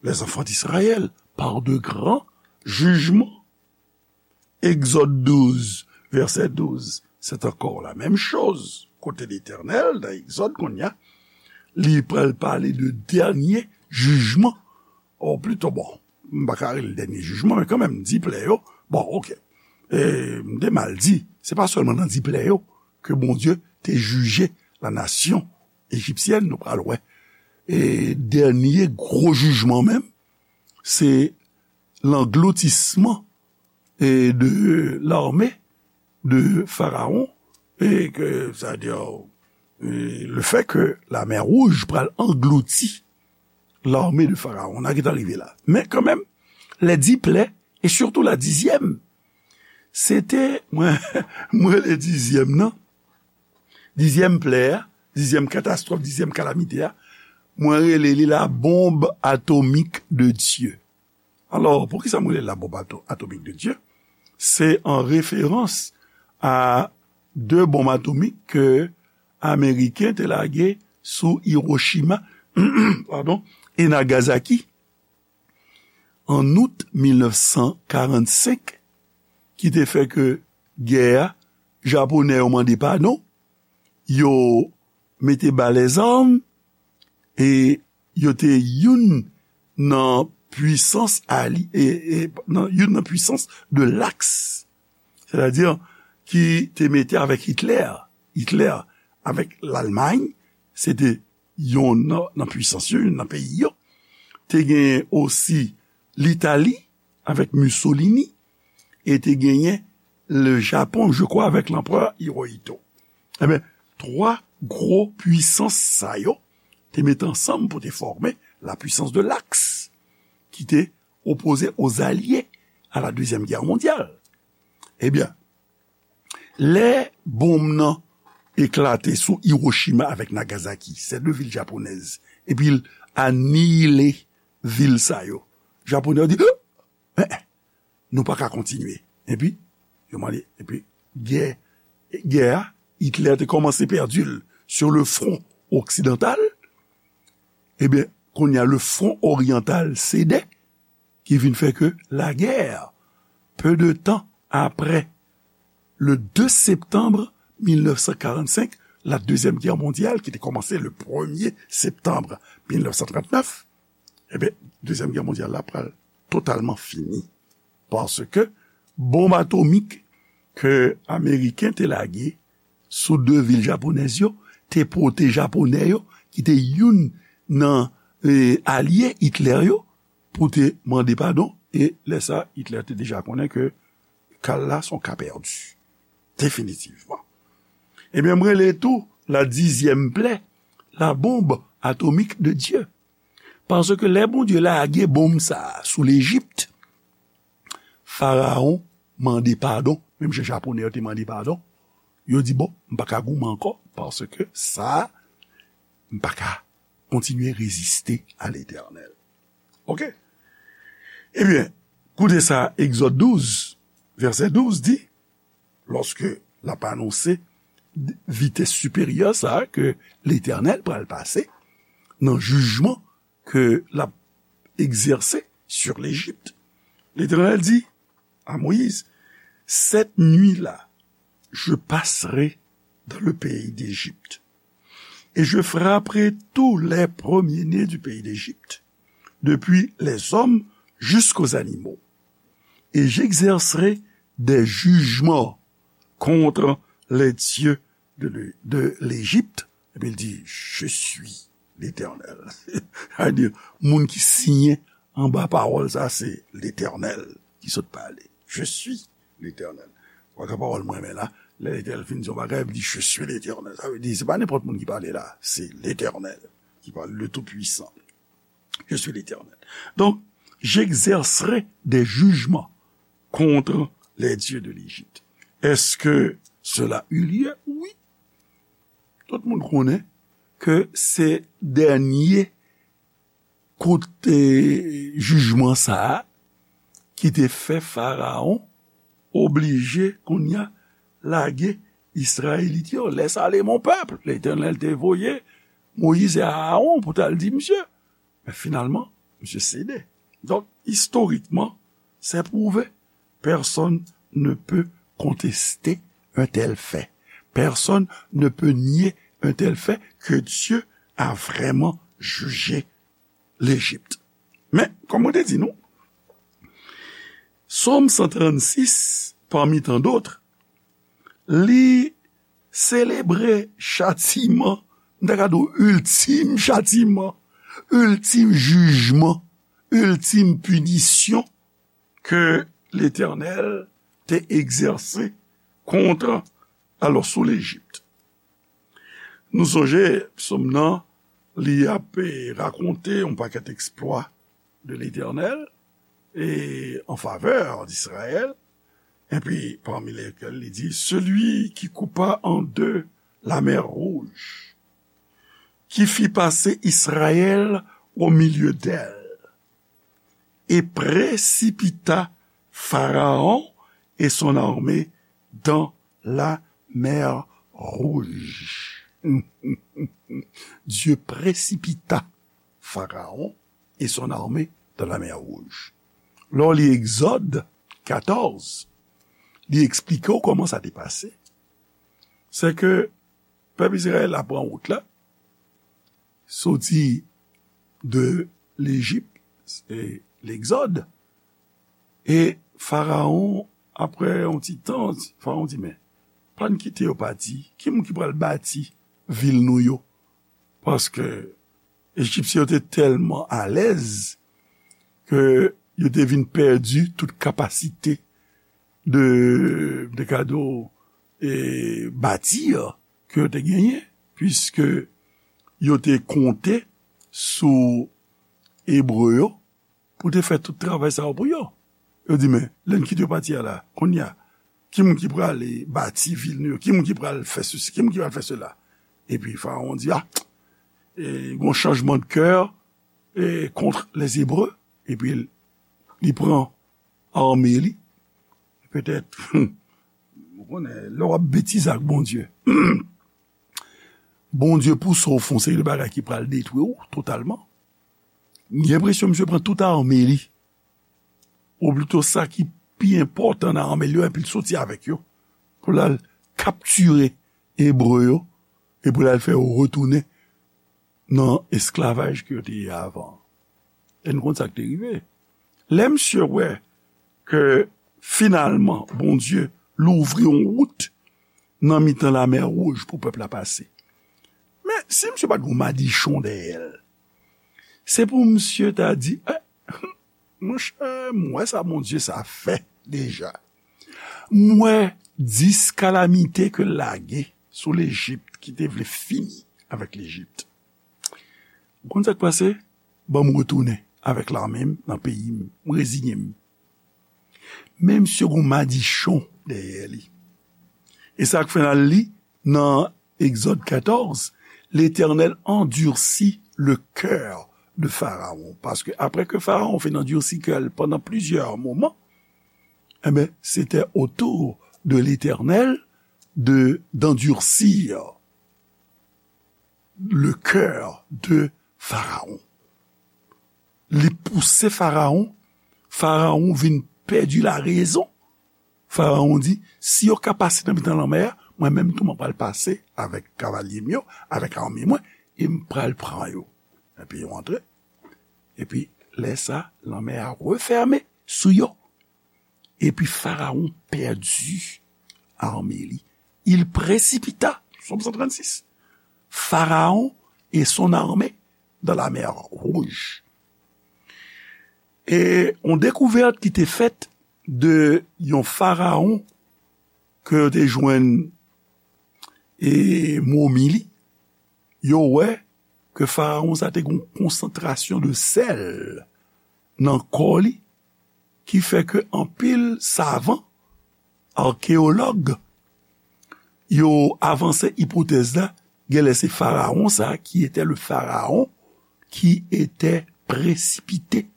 les enfants d'Israël, par de grands jugements. Egzòd douz, vèsè douz, se ankò la menm choz. Kote Letènèl, nan Egzòd, kounye a, li pral pale de dènye jijman. Ou plito, bon, m pa ka rele dènye jijman, men kanmenm, dis plè yo, bon, oke. E, m te mal di, se pa sèlman nan dis plè yo ke Bondye te jije la nasyon ejipsyèn, nou pral wè. E dènye gwo jijman menm, se langloutisman e de l'armée de Pharaon, e ke, c'est-à-dire, e le fait que la mer Rouge pral anglouti l'armée de Pharaon. N a gentan rive la. Men kanmenm, les dix plaies, et surtout la dixième, se te, mwen, mwen rele dizyèm nan, dizyèm plè a, dizyèm katastwòf, dizyèm kalamite a, mwen rele li la bombe atomique de Dieu. Alò, poukisa mwen rele la bombe ato-, atomique de Dieu? Se an referans a de bonm atomik ke Ameriken te lage sou Hiroshima, padon, e Nagasaki an out mil nèf san karannsenk, ki te fè ke gè a, Japonè yo mande padon, yo mete ba lèzam, e yo te youn nan pwisans ali-, e, e, nan, youn nan pwisans de l'Axe. Sètadi, ki te mete avèk Hitlè. Hitlè avèk Lalmay, se te youn nan, nan pwisans yo, youn nan peyi yo. Te genyen osi Litali avèk Mussolini, e te genyen le Japon, je crois, avèk l'empereur Hirohito. Ebyen, twa gwo pwisans sa yo te mete ansanm pou te fòme la puissance de l'Axe, ki te opoze aux alliés à la Deuxième Guerre mondiale. Ebyen, lè bonm nan eklate sou Hiroshima avèk Nagasaki, se de vil japonèz, epi l aniyile vil sa yo. Japonè yo di, "Eh, eh, nou pa ka kontinye." Epi, yo mande, epi, gè, gè a, Hitlè te kòmanse pèdi l sur le front occidental. Ebyen, kounye a, le front oriental sede, ki vin fè ke lagè, peu de temps après le deux septembre mille neuf cent quarante-cinq, la Deuxième Guerre mondiale, ki te kòmanse le premier septembre mille neuf cent trente-neuf, ebyen, Dezyèm Gè Mondyal la pral totalman fini. Paske bonm atomik ke Ameriken te lage sou de vil japonèz yo te pote Japonè yo, ki te youn nan, e, alye Hitler yo, pou te mande padon. E lè sa, Hitler te deja konnen ke ka l la se yon ka pèdi. Definitivman. Ebyen, m rele tou la dizyèm plè, la bombe atomique de Dieu. Paske lè Bondye lage bonm sa a sou Lejip, Farawon mande padon, menm jan Japonè yo te mande padon. Yo di, bon, m pa ka goumen ankò, paske sa a, m pa ka kontinye reziste a Letènèl. Oke? Ebyen, koute sa, Egzòd douz, vèsè douz di, lòske l ap anonse vitès siperyè sa a ke Letènèl pral pase nan jijman ke l ap egzèse sur Lejip. Letènèl di à Moïse, cette nuit-là, je passerai dans le pays d'Égypte, et je frapperai tous les premiers-nés du pays d'Égypte, depuis les hommes jusqu'aux animaux, et j'exercerai des jugements contre les dieux de, de l'Égypte. Epi l di, je suis l'Éternel. Sa vle di, moun ki siyen anba pawòl sa, se Letènèl ki sot pale. Je suis l'Éternel. Ou wè pawòl mwen renmen la, lè Letènèl fin di yon bagay, li di, je suis l'Éternel. Sa vle di, se pa nenpòt moun ki pale la, se Letènèl ki pale, le Tout-Puissant. Je suis l'Éternel. Donc, j'exercerai des jugements contre les dieux de l'Égypte. Est-ce que cela eut lieu? Oui. Tout moun konnen ke se dènye kout, e, jijman sa a ki te fè Farawon oblije kounye a lage Izrayelit yo. Laisse aller mon peuple. Letènèl te voye Moyiz e Arawon pou t al di misye. Men finalman, misye sede. Donk, istorikman, c'est prouvé. Personne ne peut contester un tel fait. Personne ne peut nier un tel fait que Dieu a vraiment jugé l'Égypte. Men, kòm mwen te di nou, Sòm san trannsis, parmi tant d'autres, li selebre chatiman, m ta ka di w, iltim chatiman, iltim jijman, iltim pinisyon ke Letènèl te egzèse kont, alò, sou Lejip. Nou sonje, sòm nan, li ap, e, rakonte yon pakèt eksplwa de Letènèl e an favè d'Israël, epi parmi lesquels li di, celui qui coupa en deux la mer Rouge, qui fit passer Israël au milieu d'elle, et précipita Pharaon et son armée dans la mer Rouge. Dieu précipita Pharaon et son armée dans la mer Rouge. Lè w li Egzòd katòz, li eksplike w kòman sa te pase. Se ke pèp Izrayèl la pran wout la, soti de Lejip, e Legzòd, e Farawon, apre yon ti tan, Farawon di, men, pa n kite yo pati, ki moun ki pral bati vil nou yo? Paske Ejipsyen yo te tèlman alèz ke yo te vin pèdi tout kapasite de, de gade, e, bati ke yo te genyen, piske yo te konte sou Ebre yo pou te fè tout travay sa yo pou yo. Yo di, men, lè n kite yo pati a la, kounye a, ki moun ki prale bati vil nou yo? Ki moun ki pral fè sesi? Ki moun ki pral fè sela? Epi Farawon di, a, e, gon chanjman de kè, e, kont les Hébreux. Epi li pran ame li. Petèt, ou konnen, lè w ap betize ak Bondye, Bondye pouse w fè yon seri de bagay ki pral detwi w totalman. M gen enpresyon misye pran tout ame li. Ou plito sa ki pi enpòtan nan ame l yo, epi l soti avèk yo pou l al kaptire Ebre yo, e pou l al fè yo retounen nan esklavaj ke yo te ye avan. E nou konn sa k te rive. Lè misye wè ke finalman Bondye louvri yon wout nan mitan Lamè Wouj pou pèp la pase. Men, si misye pa t gen yon madichon dèyè l, se pou misye ta di, eh, monchè, m wè sa Bondye sa fè deja. M wè dis kalamite ke l lage sou Lejip ki te vle fini avèk Lejip. Ou konn sa k pase? Ban m retounen avèk lame m nan peyi m. M reziye m. Men misye gen yon madichon dèyè li. E sa k fè n al li nan Egzòd katòz, L'Éternel endurcit le cœur de Pharaon. Paske apre ke Farawon fin andisi kè l pandan plizyè moman, enben, c'était au tour de l'Éternel de, d'endurcir le cœur de Pharaon. Li pouse Farawon, Farawon vin pèdi larezon. Farawon di, si yo ka pase nan mitan lanmè a, mwen menm tou mwen pral pase avèk kavalye m yo, avèk ame mwen, e m pral pran yo. Epi yo antre. Epi lè sa, lanmè a refèmen sou yo. Epi Farawon pèdi ame li. Il précipita, Sòm san trannsis, Pharaon et son armée dans la mer Rouge. E yon dekouvèt ki te fèt de yon Farawon ke yo te jwenn e momi li, yo wè ke Farawon sa te gen yon konsantrasyon de sèl nan kò li, ki fè ke anpil savan, akeyològ, yo avanse ipotèz la, genlè se Farawon sa, qui était le Pharaon qui était précipité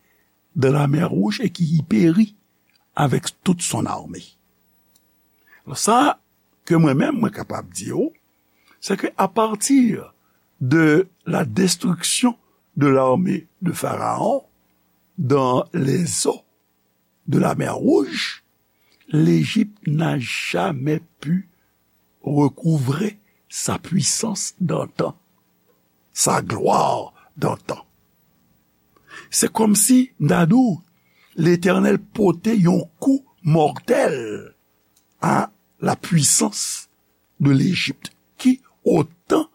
dans la mer Rouge et qui y périt avec toute son armée. Sa ke mwen menm, mwen kapab di w, c'est que à partir de la destruction de l'armée de Pharaon dans les eaux de la mer Rouge, l'Égypte n'a jamais pu recouvrer sa puissance d'antan, sa gloire d'antan. Se kòmsi, m ta di w, Letènèl pote yon kou mòtèl a la puissance de l'Égypte, qui, au temps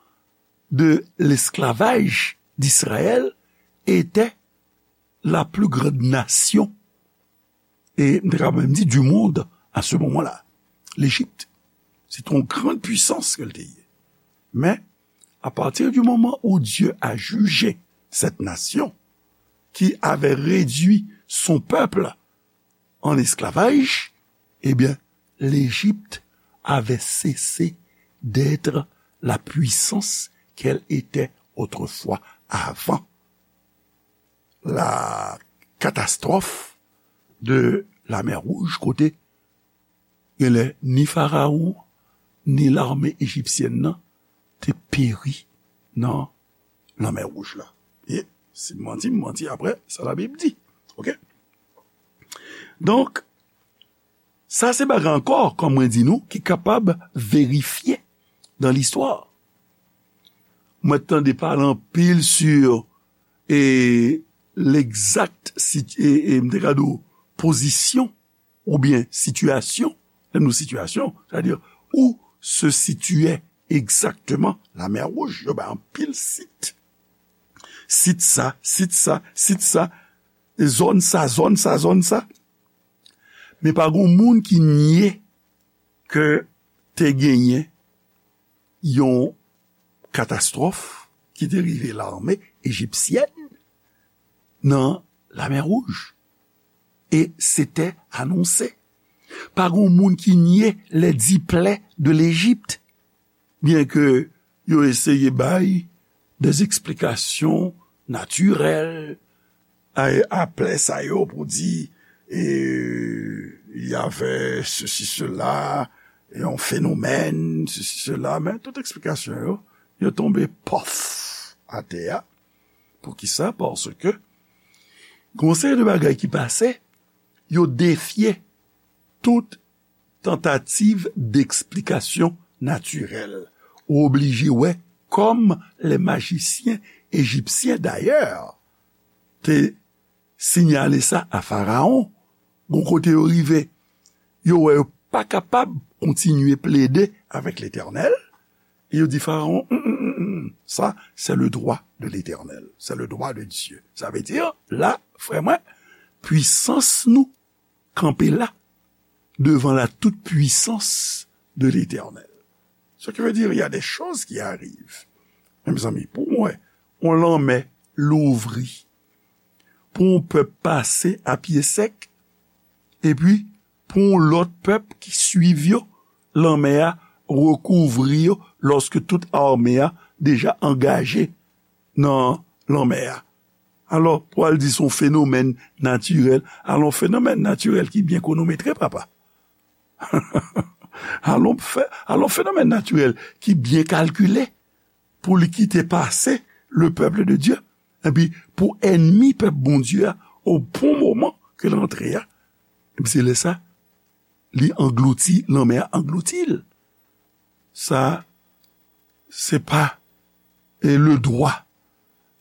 de l'esclavage d'Israël, était la plus grande nation, e m ta ka menm di, du monde à ce moment-là. L'Égypte, c'est une grande puissance ke l te ye. Mais, à partir du moment où Dieu a jugé cette nation qui avait réduit son peuple en esclavage, eh bien, l'Égypte avait cessé d'être la puissance qu'elle était autrefois, avant la catastrophe de la mer Rouge, kote genlè ni Farawon, ni lame ejipsyèn nan te peri nan Lanmè Wouj la. E si m manti, m manti apre sa Labib di. Oke? Donk, sa se bagay ankò, kòm mwen di nou, ki kapab verifye dan listwa. Mwen tande pale anpil sou, e, legzak sit-, e, e, m te ka di w, pozisyon oubyen sitiyasyon, lè nou sitiyasyon, sètadi où se situait exactement la mer Rouge, yo bay anpil sit. Sit sa, sit sa, sit sa, e zòn sa, zòn sa, zòn sa. Men pa gen moun ki nye ke te genyen yon katastwòf ki te rive lame ejipsyèn nan Lamè Wouj. E se te anonse. Pa gen moun ki nye les dix plaies de l'Égypte, byen ke yo eseye bay des explications naturelles a, a plè sa yo pou di, e, y avait ceci, cela, yon fenomèn, ceci, cela, men tout eksplikasyon yo, yo tonbe pòf atè a. Poukisa? Paske gen yon seri de bagay ki pase, yo defye tout tantativ deksplikasyon natirèl. Ou oblije wè, kòm lè majisyen ejipsyen dayè te siyale sa a Farawon, gon kote yo rive, yo wè yo pa kapab kontinye plede avèk Letènèl, e yo di Farawon, "Mm, mm, mm, mm, sa, c'est le droit de l'Éternel, c'est le droit de Dieu." Sa vle di, la, frè mwen, pwisans nou kanpe la devan la toute puissance de l'Éternel. Ce qui veut dire, il y a des choses qui arrivent. Men mezanmi, pou mwen, yon lanmè louvri, pou yon pèp pase a pye sèk, epi pou yon lòt pèp ki swiv yo, lanmè a rekouvri yo, lòske tout ame a deja angaje nan lanmè a. Alò, pou al di se yon fenomèn natirèl, alò, yon fenomèn natirèl ki byen kwonometre, papa. Alò, fè, alò, fenomèn natirèl ki byen kalkile pou li kite pase le peuple de Dieu. Epi, pou ènmi pèp Bondye a, o bon moman ke l antre a, epi se lè sa, li anglouti, lanmè a anglouti l. Sa, se pa, e, le droit,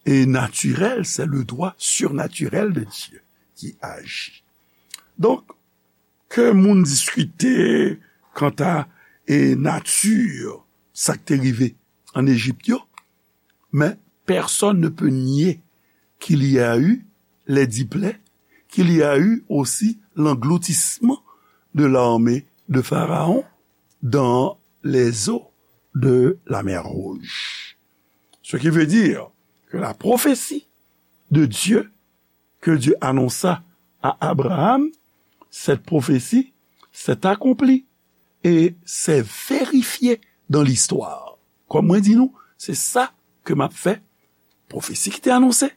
e, naturel, c'est le droit surnaturel de Dieu qui agit. Donk, ke moun diskite kanta, e, nati sa k te rive ann Ejip yo, mais personne ne peut nier qu'il y a eu les dix plaies, qu'il y a eu aussi l'engloutissement de l'armée de Pharaon dans les eaux de la mer Rouge. Ce qui veut dire que la prophétie de Dieu que Dieu annonça à Abraham, cette prophétie s'est accomplie et s'est vérifiée dans l'histoire. Kòm mwen di nou, se sa ke m ap fè, pwofesi ki te anonse,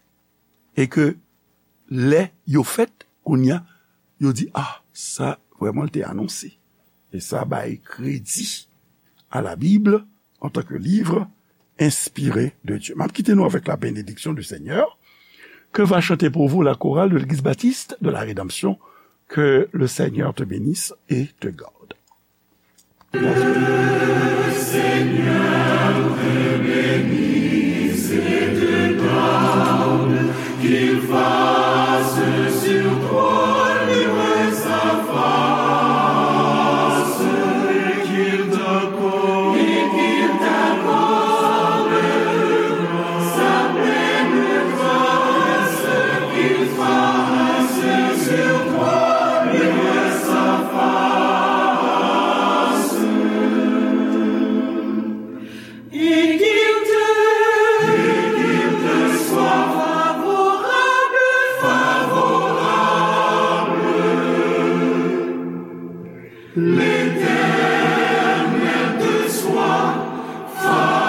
e ke lè yo fèt, kounye a, yo di, "Ah, sa, vrèman, l te anonse." E sa bay kredi à la Bible en tant que livre inspiré de Dieu. M ap kite nou avèk la bénédiction du Seigneur. Que va chanter pour vous la chorale de l'Église baptiste de la Rédemption. Que le Seigneur te bénisse et te garde. Et qu'il te, et qu'il te soit favorable, favorable. L'Éternel te soit favorable.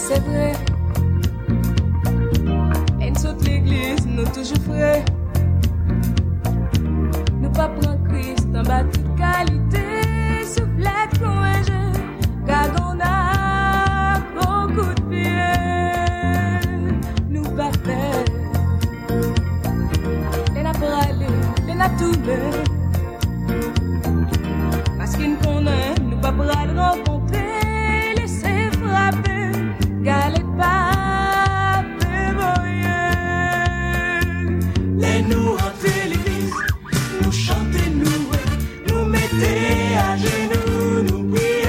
Se vre. Lè n sot legliz, nou toujou fre. Nou pa pran Kris anba tout kalite souflèt konvenje. Gad on ak on kout pye. Nou pa pè. Lè n ap prale, lè n ap tounen.